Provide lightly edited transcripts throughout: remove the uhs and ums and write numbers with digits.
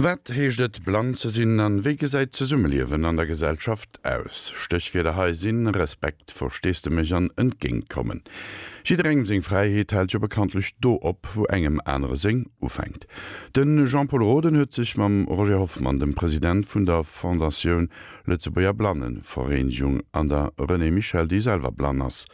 Wat heescht et blann ze sinn an wéi gesäit d'Zesummeliewen an der Gesellschaft aus? Stéchwierder hei sinn Respekt, Versteesdemech an Entgéintkommen. Jidderengem seng Fräiheet hält jo bekanntlech do op, wou engem anere seng ufänkt. De Jean-Pol Roden huet sech mam Roger Hoffmann, dem President vun der Fondatioun Lëtzebuerger Blannevereenigung an der Renée Michel, déi selwer blann ass,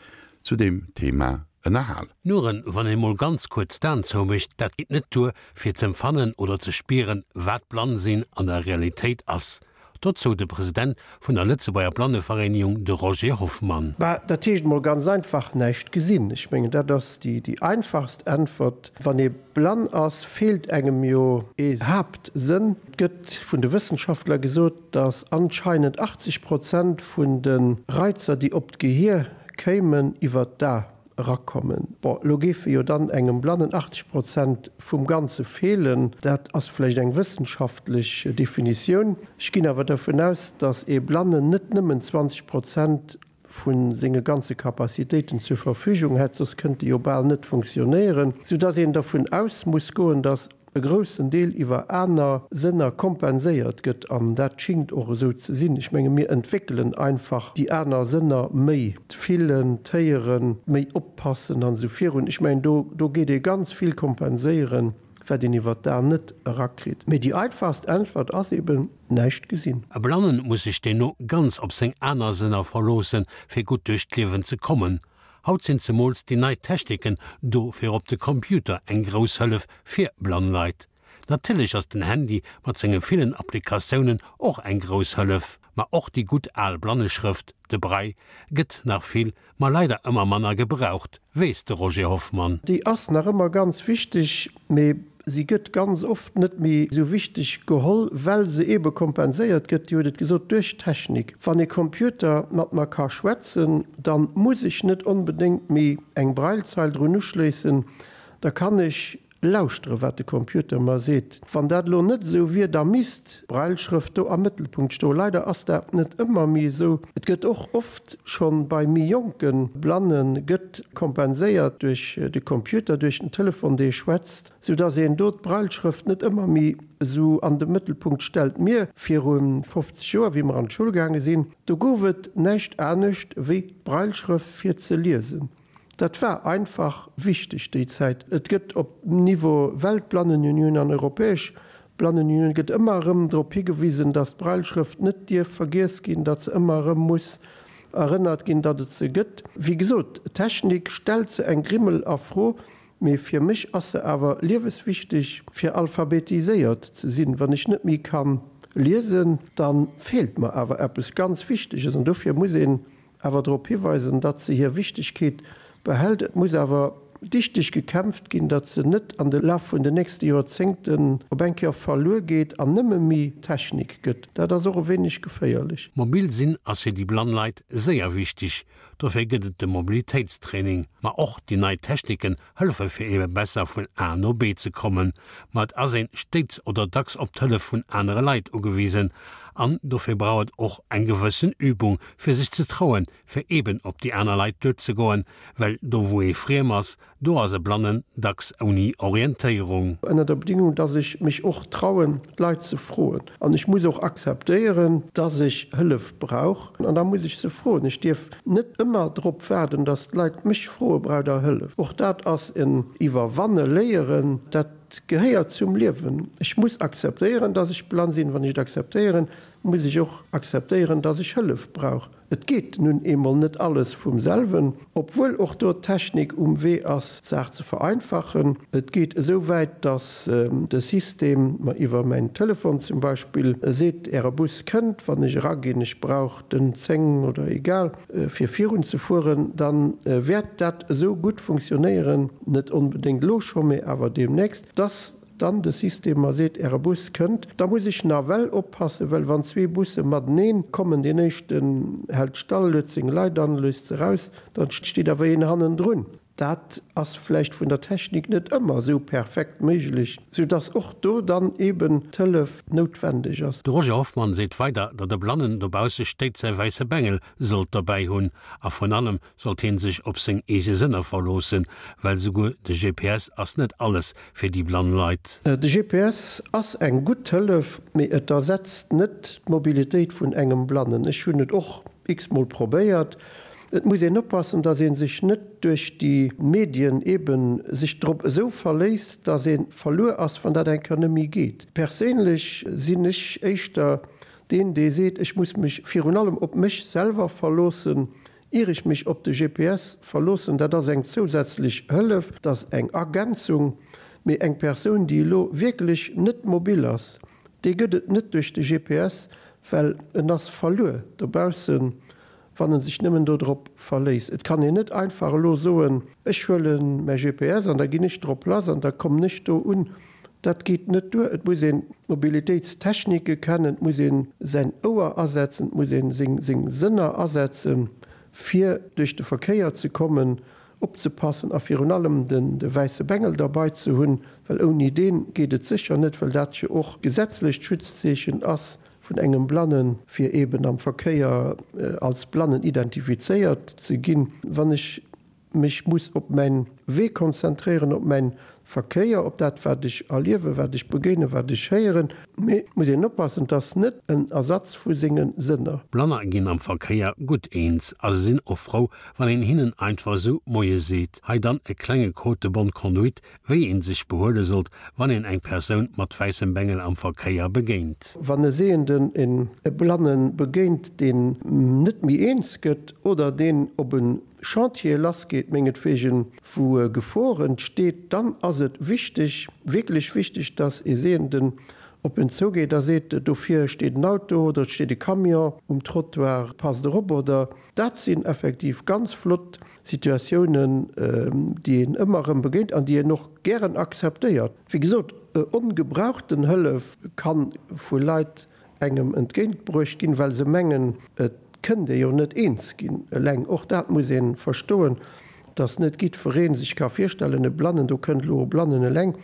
zu deem Thema ënnerhal. Nuren, wann een mol ganz kuerz d'Aen zoumécht, dat geet net duer, fir z'empfannen oder ze spieren, wat blann sinn an der Realitéit ass. Dozou de President vun der Lëtzebuerger Blannevereenigung, de Roger Hoffmann. Bah, dat heescht mol ganz einfach, näischt gesinn. Ech mengen, dat ass déi einfachst Äntwert. Wann ee blann ass, feelt engem jo ee Haaptsënn. Et gëtt vun de Wëssenschaftler gesot, datt anscheinend 80 Prozent vun de Reizer, déi op d'Gehier kéimen, iwwer d'A erakommen. Bon, elo géife jo dann engem Blannen 80 Prozent vum Ganze feelen. Dat ass vläicht eng wëssenschaftlech Definitioun. Ech ginn awer dervun aus, datt ee Blannen net nëmmen 20 Prozent vu senge ganze Capacitéiten zur Verfügung hätt, soss kënnt e jo bal net funktionéieren, soudatt een dervun aus muss goen, datt e groussen Deel iwwer aner Sënner kompenséiert gëtt, an dat schingt och esou ze sinn. Ech menge mir entwéckelen einfach déi aner Sënner méi, d'Fillen, d'Héieren, méi oppassen an esou virun. Ech mengen do do geet ee ganz vill kompenséieren, wat een iwwer d'Aen net erakritt. Mee déi einfachst Äntwert ass eben, näischt gesinn. E Blannen muss sech deemno ganz op seng aner Sënner verloossen, fir gutt duerch d'Liewen ze kommen. Haut sinn zemools déi nei Techniken do fir op de Computer eng grouss Hëllef fir blann Leit. Natierlech ass den Handy mat senge villen Applikatiounen och eng grouss Hëllef, ma och déi gutt al Blanneschrëft, de Braille, gëtt nach vill, ma leider ëmmer manner gebraucht, weess de Roger Hoffmann. Déi ass nach ëmmer ganz wichteg, mee Si gëtt ganz oft net méi esou wichteg geholl, well se eebe kompenséiert gëtt, Dir hutt et gesot, duerch d'Technik. Wann e Computer mat mer ka schwätzen, da muss ech net onbedéngt méi eng Braillezeil drun uschléissen, da kann ech lauschtere wat de Computer mer seet. Wann dat elo net esou wier, da misst d'Brailleschrëft do am Mëttelpunkt stoen. Leider ass dat net ëmmer méi esou. Et gëtt och oft schonn bei méi jonke Blanne gëtt kompenséiert duerch de Computer, duerch den Telefon dee schwätzt, sou dass een do d'Brailleschrëft net ëmmer méi esou an de Mëttelpunkt stellt. Mir viru 50 Joer, wéi mer an d'Schoul gaange sinn, do gouf et näischt anescht wéi d'Brailleschrëft fir ze liesen. Dat war einfach wichteg déi Zäit. Et gëtt op Niveau Weltblannenunioun an Europäesch Blannenunioun gëtt ëmmer erëm drop higewisen, datt d'Brailleschrëft net dierf vergiess ginn, datt se ëmmer erëm muss erënnert ginn, datt et se gëtt. Wéi gesot, d'Technik stellt se eng Grimmel a Fro, mee fir mech ass se awer lieweswichteg, fir alphabetiséiert ze sinn. Wann ech net méi ka liesen, da feelt mer awer eppes ganz Wichteges an dofir muss een awer drop hiweisen, datt se hir Wichtegkeet behält. Et muss awer dichteg gekämpft ginn, datt se net an de Laf vun den nächste Joerzéngten op eng Kéier verluer geet an nëmme méi Technik gëtt. Dat ass och e wéineg geféierlech. Mobil sinn ass fir déi blann Leit séier wichteg. Dofir gëtt et de Mobilitéitstraining. Ma och déi nei Techniken hëllefe fir ebe besser vun A no B ze kommen. Ma et ass een stéits oder dacks op d'Hëllef vun anere Leit ugewisen an dofir brauch et och eng gewëssen Übung fir sech ze trauen fir eben op déi aner Leit duerzegoen, well do wou ee friem ass, do ass e Blannen dacks ouni Orientéierung. Ënner der Bedingung, dass ech mech och trauen d'Leit ze froen. An ech muss och akzeptéieren, dass ech Hëllef brauch an da muss ech se froen. Ech dierf net ëmmer drop waarden, dass d'Leit mech froe braucht der Hëllef. Och dat ass en Iwwerwanne léieren. Dat gehéiert zum Liewen. Ech muss akzeptéieren, dass ech blann sinn. Wann ech et akzeptéieren, muss ech och akzeptéieren, dass ech Hëllef brauch. Et geet nun eemol net alles vum selwen, obwuel och do d'Technik um Wee ass, d'Saach ze vereinfachen. Et geet esou wäit, dass de System mer iwwer mäin Telefon zum Beispill seet, Äre Bus kënnt, wann ech eraginn, ech brauch den 10 oder egal, fir virun ze fueren, da wäert dat esou gutt funktionéieren, net onbedéngt elo scho, mee awer deemnächst, dass dann de System mer seet, Äre Bus kënnt, da muss ech nawell oppassen, well wann zwee Busse mateneen kommen, deen éischten hält stall, luet seng Leit an, léisst se raus, dann steet awer een hannendrun. Dat ass vläicht vun der Technik net ëmmer esou perfekt méiglech, soudass och do dann eeben d'Hëllef noutwendeg ass. De Roger Hoffmann seet weider, datt e Blannen dobausse stéit säi wäisse Bengel sollt derbäi hunn a vrun allem sollt hien sech op seng eege Sënner verloossen, well souguer de GPS ass net alles fir déi blann Leit. De GPS ass eng gutt Hëllef, mee et ersetzt net d'Mobilitéit vun engem Blannen. Ech hunn et och x-mol probéiert. Et muss een oppassen, dass ee sech net duerch déi Medien eben sech drop esou verléisst, dass ee verluer ass, wann dat eng Kéier net méi geet. Perséinlech sinn ech éischter deen, dee seet, ech muss mech virun allem op mech selwer verloossen, ier ech mech op de GPS verloossen. Dat ass eng zousätzlech Hëllef, dat ass eng Ergänzung. Mee eng Persoun, déi elo wierklech net mobil ass, déi gëtt et net duerch de GPS, well en ass verluer dobaussen. wann en sech nëmmen do drop verléisst. Et kann een net einfach elo soen, ech huele mäi GPS an da ginn ech drop lass an da kommen ech do un. Dat geet net duer. Et muss een d'Mobilitéitstechnike kennen, et muss ee säin Ouer asetzen, et muss ee seng seng Sënner asetzen, fir duerch de Verkéier ze kommen, opzepassen a virun allem den de wäisse Bengel derbei ze hunn, well ouni dee geet et sécher net, well dat jo och gesetzlecht Schutzzeechen ass vun engem Blannen, fir eben am Verkéier als Blannen identifizéiert ze ginn. Wann ech mech muss op mäin Wee konzentréieren, op mäin Verkéier, op dat wat ech erliewen, wat ech begéinen, wat ech héieren. Mee et muss een oppassen, et ass net en Ersatz vu senge Sënner. Blanner ginn am Verkéier gutt eens a se sinn och frou, wann een hinnen einfach esou Moie seet. Hei dann e klenge Code de bonne conduite, Wéi een sech behuele sollt, wann een eng Persoun mat wäissem Bengel am Verkéier begéint. Wann e Sehenden en e Blanne begéint, deen net méi eens gëtt oder deen op e Chantier lassgeet, mengetwegen, wou Gefor entsteet, dann ass et wichteg, wierklech wichteg, dass e Sehenden op en zougeet a seet, Dofir steet en Auto oder et steet e Camion um Trottoir, passt erop oder. Dat sinn effektiv ganz flott Situatiounen, déi een ëmmer erëm begéint an déi een och gären akzeptéiert. Wéi gesot, ongebrauchten Hëllef ka vu Leit engem entgéintbruecht ginn, well se mengen, et kënnt ee jo net eens ginn eleng. Och dat muss ee verstoen, dass net jiddweree sech ka virstellen, e Blannen, do kënnt elo e Blannen eleng,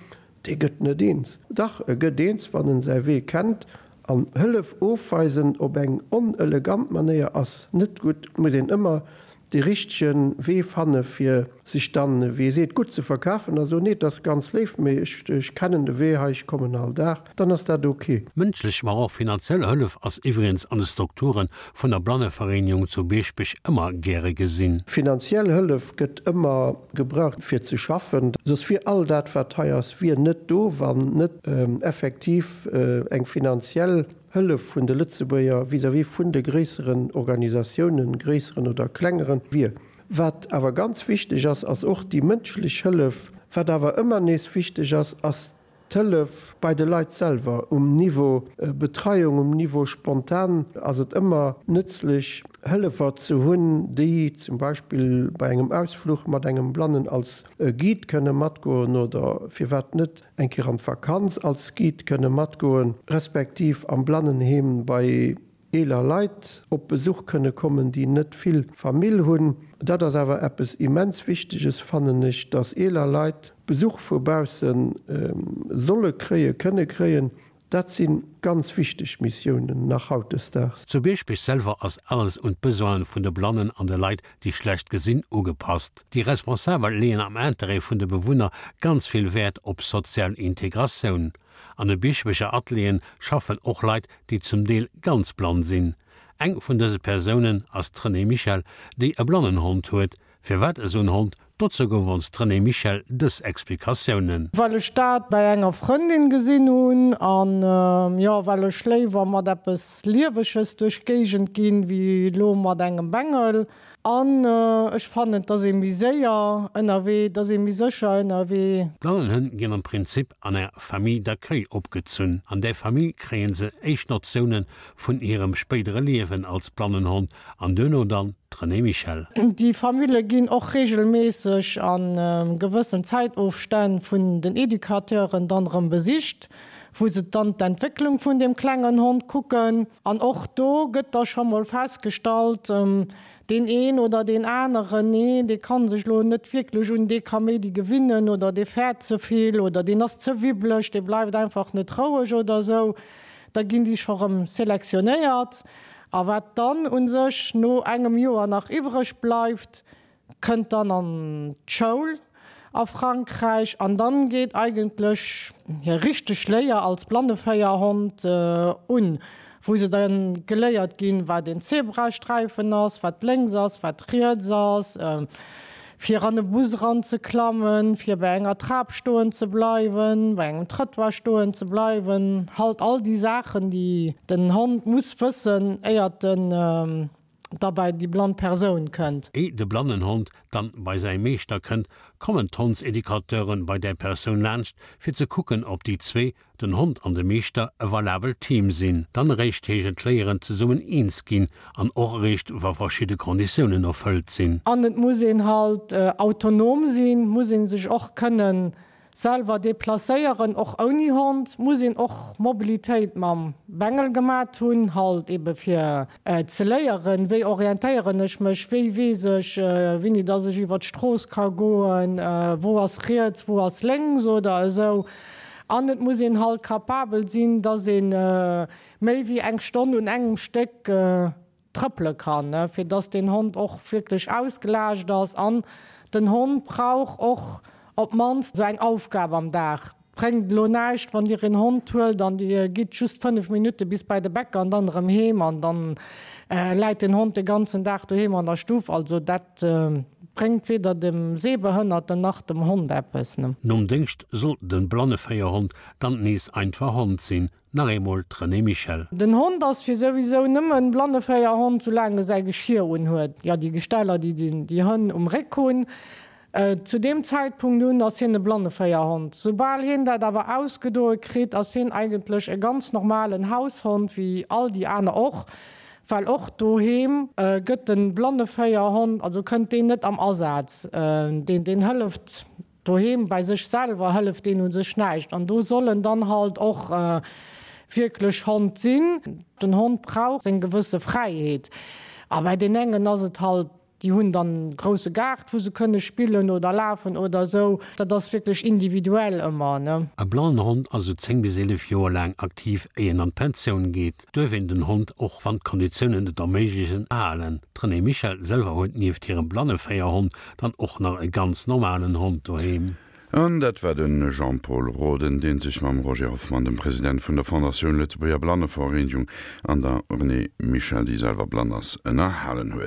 Dee gëtt net eens. Dach, e gëtt eens, wann en säi Wee kennt. An Hëllef ofweisen op eng onelegant Manéier ass net gutt. Et muss een ëmmer dee richtege Wee fanne fir sech dann, wéi ee seet, gutt ze verkafen a soen, nee, et ass ganz léif, mee ech, ech kennen de Wee hei, ech kommen all Dag. Dann ass dat ok. Mënschlech, ma och finanziell Hëllef ass iwwregens an de Strukture vun der Blannevereenigung zu Bieschbech ëmmer gäre gesinn. Finanziell Hëllef gëtt ëmmer gebraucht fir ze schaffen, soss wier all dat wat hei ass wier net do, wann net effektiv eng finanziell Hëllef vun de Lëtzebuerger vis-à-vis vun de gréisseren Organisatiounen, gréisseren oder klengeren, wier. Wat awer ganz wichteg ass, ass och déi mënschlech Hëllef. Wat awer ëmmer nees wichteg ass, ass D'Hëllef bei de Leit selwer, um Niveau Betreiung, um Niveau spontan, ass et ëmmer nëtzlech, Hëllefer ze hunn, déi zum Beispill bei engem Ausfluch mat engem Blannen als Guide kënne matgoen oder firwat net eng Kéier an d'Vakanz als Guide kënne matgoen, respektiv am Blannenheem bei eeler Leit op Besuch kënne kommen, déi net vill Famill hunn. Dat ass awer eppes immens Wichteges, fannen ech, dass eeler Leit Besuch vu bausse solle kréien, kënne kréien. Dat si ganz wichteg Missiounen nach hautdesdaags. Zu Bieschbech selwer ass alles un d'Besoine vun de Blannen an de Leit, déi schlecht gesinn, ugepasst. Déi Responsabel leeën am Interêt vun de Bewunner ganz vill Wäert op sozial Integratioun. An de Biechebecher Atelieren schaffen och Leit, déi zum Deel ganz blann sinn. Eng vun dëse Persounen ass d'Renée Michel, déi e Blannenhond huet. Firwat esou en Hond? Dozou gouf ons d'Renée Michel dës Explikatiounen. Well ech dat bei enger Frëndin gesinn hunn an jo, well ech léiwer mat eppes Lieweges duerch d'Géigend ginn, wéi elo mat engem Bengel. An ech fannen, et ass ee méi séier ënnerwee, et ass ee méi sécher ënnerwee. D'Blannenhënn ginn am Prinzip an enger Famille d'accueil opgezunn. An där Famill kréie se éischt Notioune vun hirem spéidere Liewen als Blannenhond an duerno dann d'Renée Michel. Déi Famille ginn och reegelméisseg a gewëssen Zäitofstänn vun den Educateuren dann erëm besicht, wou se dann d'Entwécklung vun deem klengen Hond kucken. An och do gëtt da scho mol festgestallt,. Deen een oder deen aneren, nee, dee kann sech lo net wierklech un dee Kaméidi gewinnen oder dee fäert ze vill oder deen ass ze wibbeleg, dee bleift einfach net roueg oder esou. Da ginn déi scho rëm selektionéiert. A wat dann u sech no engem Joer nach iwwreg bleift, kënnt dann an d'Schoul a Frankräich an dann geet eigentlech hir richteg Léier als Blanneféierhond un, wou se dann geléiert ginn, wat een Zebrasträifen ass, wat lénks ass, wat riets ass, fir an e Bus eran ze klammen, fir bei enger Trap stoen ze bleiwen, bei engem Trëttoir stoen ze bleiwen, halt all déi Saachen, déi den Hond muss wëssen, éiert en da bei déi blann Persoun kënnt. Éi de Blannenhond dann bei säi Meeschter kënnt, kommen d'Hondseducateuren bei där Persoun laanscht, fir ze kucken, ob déi zwee, den Hond an de Meeschter, e valabelt Team sinn. Dann eréischt heescht et léieren zesummen eens ginn an och eréischt wa verschidde Konditiounen erfëllt sinn. An et muss een halt autonom sinn, muss ee sech och kënnen Selwer deplacéieren, och ouni Hond, muss een och Mobilitéit mam Bengel gemat hunn, halt ebe fir ze léieren, wéi orientéieren ech mech, wéi weess ech wéini dass ech iwwer d'Strooss ka goen, wou ass riets, wou ass lénks oder esou. An et muss een halt capabel sinn, dass ee méi wéi eng Stonn un engem Stéck trëppele kann, fir dass deen Hond och wierklech ausgelaascht ass. An den Hond brauch och op d'mannst esou eng Aufgab am Dag. Et bréngt elo näischt, wann Dir een Hond huelt an Dir gitt just 5 Minutte bis bei de Bäcker an dann erëm heem an dann läit den Hond de ganzen Dag doheem an der Stuff. Also dat bréngt weder dem Sehbehënnerten nach dem Hond eppes. Nom Déngscht soll de Blanneféierhond dann nees einfach Hond sinn, Nach eemol d'Renée Michel. Den Hond ass fir souwisou nëmmen Blanneféierhond, soulaang e säi Geschir unhuet, jo déi Gesteller déi déi Hënn um Réck hunn. Zu deem Zäitpunkt un ass hien e Blanneféierhond. Soubal hien dat awer ausgedoe kritt, ass hien eigentlech e ganz normalen Haushond wéi all déi aner och, well och doheem gëtt de Blanneféierhond, also kënnt deen net am Asaz, deen deen hëlleft Doheem bei sech selwer hëlleft deen u sech näischt an do soll en dann halt och wierklech Hond sinn. Den Hond brauch seng gewësse Fräiheet a bei deen engen ass et halt, déi hunn dann e grousse Gaart wou se kënne spillen oder lafen oder esou. Dat ass wierklech individuell ëmmer, ne. E blannen Hond ass esou 10 bis 11 Joer laang aktiv éier en an d'Pensioun geet. Duerf een den Hond, och wann d'Konditiounen et erméiglechen, halen. D'Renée Michel selwer huet nieft hirem Blanneféierhond dann och nach e ganz normalen Hond doheem. An dat war de Jean-Pol Roden, dee sech mam Roger Hoffmann, dem President vun der Fondatioun Lëtzebuerger Blannevereenegung, an der Renée Michel, déi selwer blann ass, ënnerhalen huet.